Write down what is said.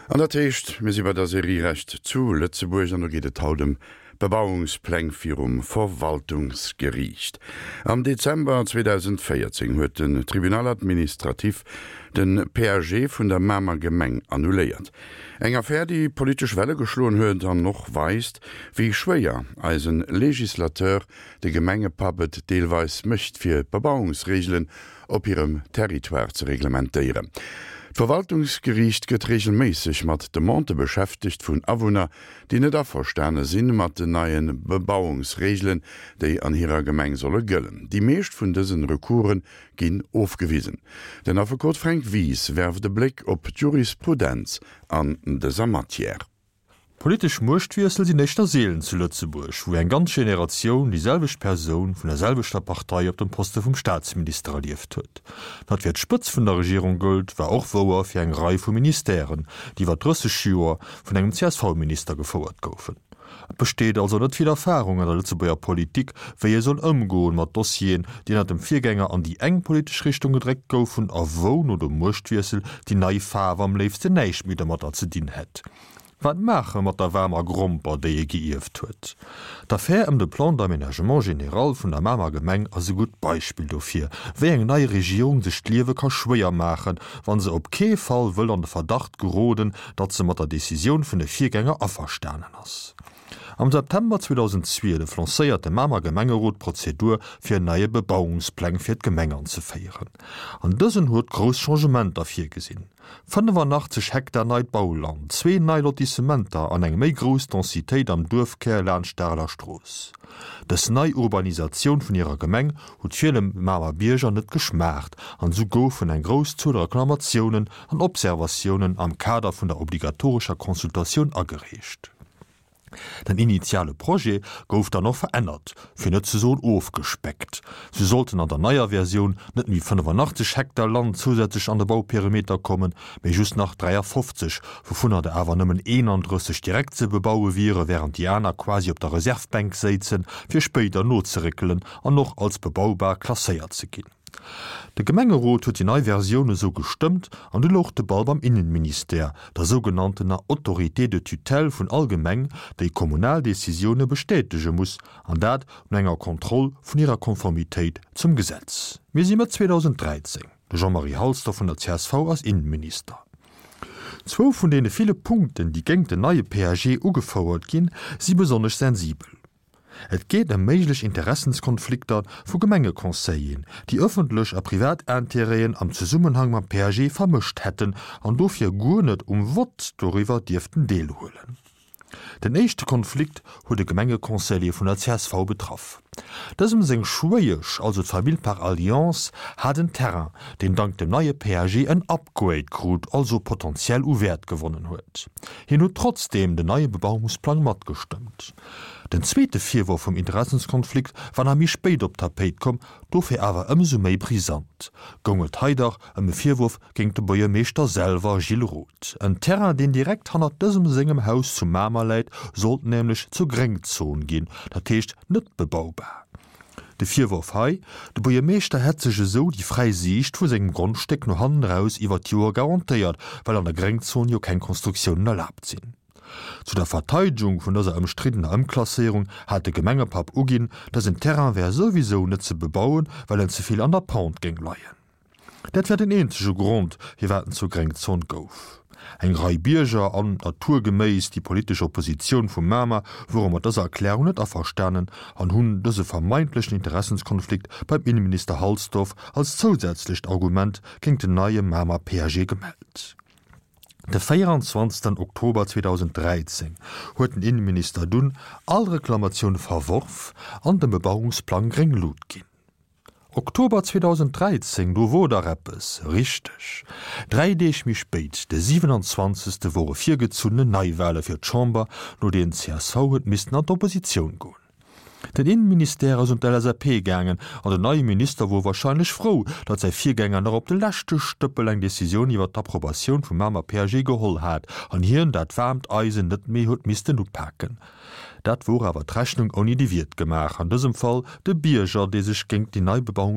An dat heescht, mir si bei der Serie Recht zu Lëtzebuerg an do geet et haut ëm Bebauungspläng virum Verwaltungsgeriicht. Am Dezember 2014 huet den Tribunal administratif de PAG vun der Mamer Gemeng annuléiert. Eng Affär, déi politesch Welle geschloen huet an och weist, wéi schwéier eisen Legislateur, de Gemengepapp, et deelweis mécht fir d'Bebauungsreegelen op hirem Territoire ze reglementéieren. D'Verwaltungsgeriicht gëtt reegelméisseg mat Demandë beschäftegt vun Awunner, déi net averstane sinn mat den neie Bebauungsreegelen, déi an hirer Gemeng solle gëllen. Déi meescht vun dësen Recoursen ginn ofgewisen. Den Affekot Fränk Wies werft e Bléck op d'Jurisprudenz an dëser Matière. Politesch Muechtwiessel sinn éischter seelen zu Lëtzebuerg, wou eng ganz Generatioun déi selwecht Persoun vun der selwechter Partei op dem Poste vum Staatsminister erlieft huet. Wat fir d'Spëtz vun der Regierung gëllt, war och wouer fir eng Rei vu Ministèren, déi iwwer 30 Joer vun engem CSV-Minister gefouert goufen. Et besteet also net vill Erfarung an der Lëtzebuerger Politik, wéi ee soll ëmgoen mat Dossieren, déi ënner dem Virgänger an déi eng politesch Richtung gedréckt goufen a wou no dem Muechtwiessel déi nei Faarf am léifsten näischt méi domatter ze dinn hätt. Wat maache mat der waarmer Gromper, déi ee geierft huet? D'Affär ëm de Plan d'aménagement général vun der Mamer Gemeng ass e gutt Beispill dofir, wéi eng nei Regierung sech d'Liewe ka schwéier maachen, wa se op kee Fall wëll an de Verdacht geroden, datt se mat der Decisioun vun de Virgänger averstanen ass. Am September 2012 lancéiert de Mamer Gemengerot d'Prozedur, fir en neie Bebauungspläng fir d'Gemeng anzeféieren. An dësen huet grouss Changementer virgesinn. 85 Hektar neit Bauland, zwee nei Lotissementer an eng méi grouss Densitéit am Duerfkär laanscht d'Areler Strooss. Dës nei Urbanisatioun vun hirer Gemeng huet ville Mamer Bierger net geschmaacht an esou goufen eng grouss Zuel Reklamatiounen an Observatiounen am Kader vun der obligatorescher Consultatioun agereecht. Den initiale Projet gouf dann och verännert, fir net ze soen ofgespeckt. Sou sollten an der neier Versioun net méi 85 Hektar Land zousätzlech an de Bauperimeter kommen, mee just nach 53, wouvunner der awer nëmmen 31 direkt ze bebaue wiere, wärend déi aner quasi op der Reservbänk séizen, fir spéider nozeréckelen an och als bebaubar klasséiert ze ginn. De Gemengerot huet déi nei Versioun esou gestëmmt an du louch de Ball beim Innenministère, der sougenanntener Autorité de tutelle vun all Gemeng, déi kommunal Decisioune bestätege muss, an dat no enger Kontroll vun hirer Konformitéit zum Gesetz. Mir si Mëtt 2013, de Jean-Marie Halsdorf vun der csv ass Innenminister. Zwou vun deene ville Punkten, déi géingt den neie PAG ugefouert ginn, si besonnesch sensibel. Et geet ëm méiglech Interessenskonflikter vu Gemengeconseilleren, déi ëffentlech a privat Intérêten am Zesummenhang mam PAG vermëscht hätten an dofir guer net um Vott doriwwer dierften deelhuelen. Den éischte Konflikt huet e Gemengeconseiller vun der csv betraff. Dësem seng Schwéiesch, also d'Famill par alliance, hat en Terrain, deen dank dem neie PAG en Upgrade krut, also potentiell u Wäert gewonnen huet. Hien huet trotzdeem den neie Bebauungsplang matgestëmmt. Den zweete Virworf vum Interessenskonflikt war nach méi spéit op d'Tapéit komm, dofir awer ëmsou méi brisant. Goung et hei dach ëm e Virworf géint de Buergermeeschter selwer, Gilles Roth. En Terrain, deen direkt hannert dësem sengem Haus zu Mamer läit, sollt nämlech zur Gréngzon ginn, dat heescht net bebaubar. De Virworf hei, de Buergermeeschter hätt sech esou déi fräi Siicht vu sengem Grondstéck no hannen eraus iwwer d'Joer garantéiert, well an der Gréngzon jo keng Konstruktiounen erlaabt sinn. Zu der Verteidegung vun dëser ëmstriddener Ëmklasséierung hat de Gemengepapp uginn, dësen Terrain wär souwisou net ze bebauen, well en ze vill an der Pente géing leien. Dat wär den eenzege Grond, firwat en zur Gréngzon gouf. Eng Rei Bierger an, naturgeméiss, déi politesch Oppositioun vu Mamer wore mat dëser Erklärung net averstanen an hunn dëse vermeintlechen Interessenskonflikt beim Inneminister Halsdorf als zousätzlecht Argument géingt den neie Mamer PAG gemellt. De 24 Oktober 2013 huet den Inneminister dunn all Reklamatioune verworf an dem Bebauungsplang gréng Lut ginn. Oktober 2013, do wor dach eppes, richteg, dräi Deeg méi spéit, de 27. wore virgezunnene Neiwale fir d'Chamber, no deenen csv huet missten an d'Oppositioun goen. Den Innenministère ass un d'LSAP gaangen an den neie Minister wor wahrscheinlech frou, datt säi Virgänger nach op de leschte Stëppel eng Decisioun iwwer d'Approbatioun vum Mamer PAG geholl hat an hien dat waarmt Eisen net méi huet missten upaken. Dat wor awer d'Rechnung ouni de Wiert gemaach, an dësem Fall de Bierger, dee sech géingt déi nei Bebauungs.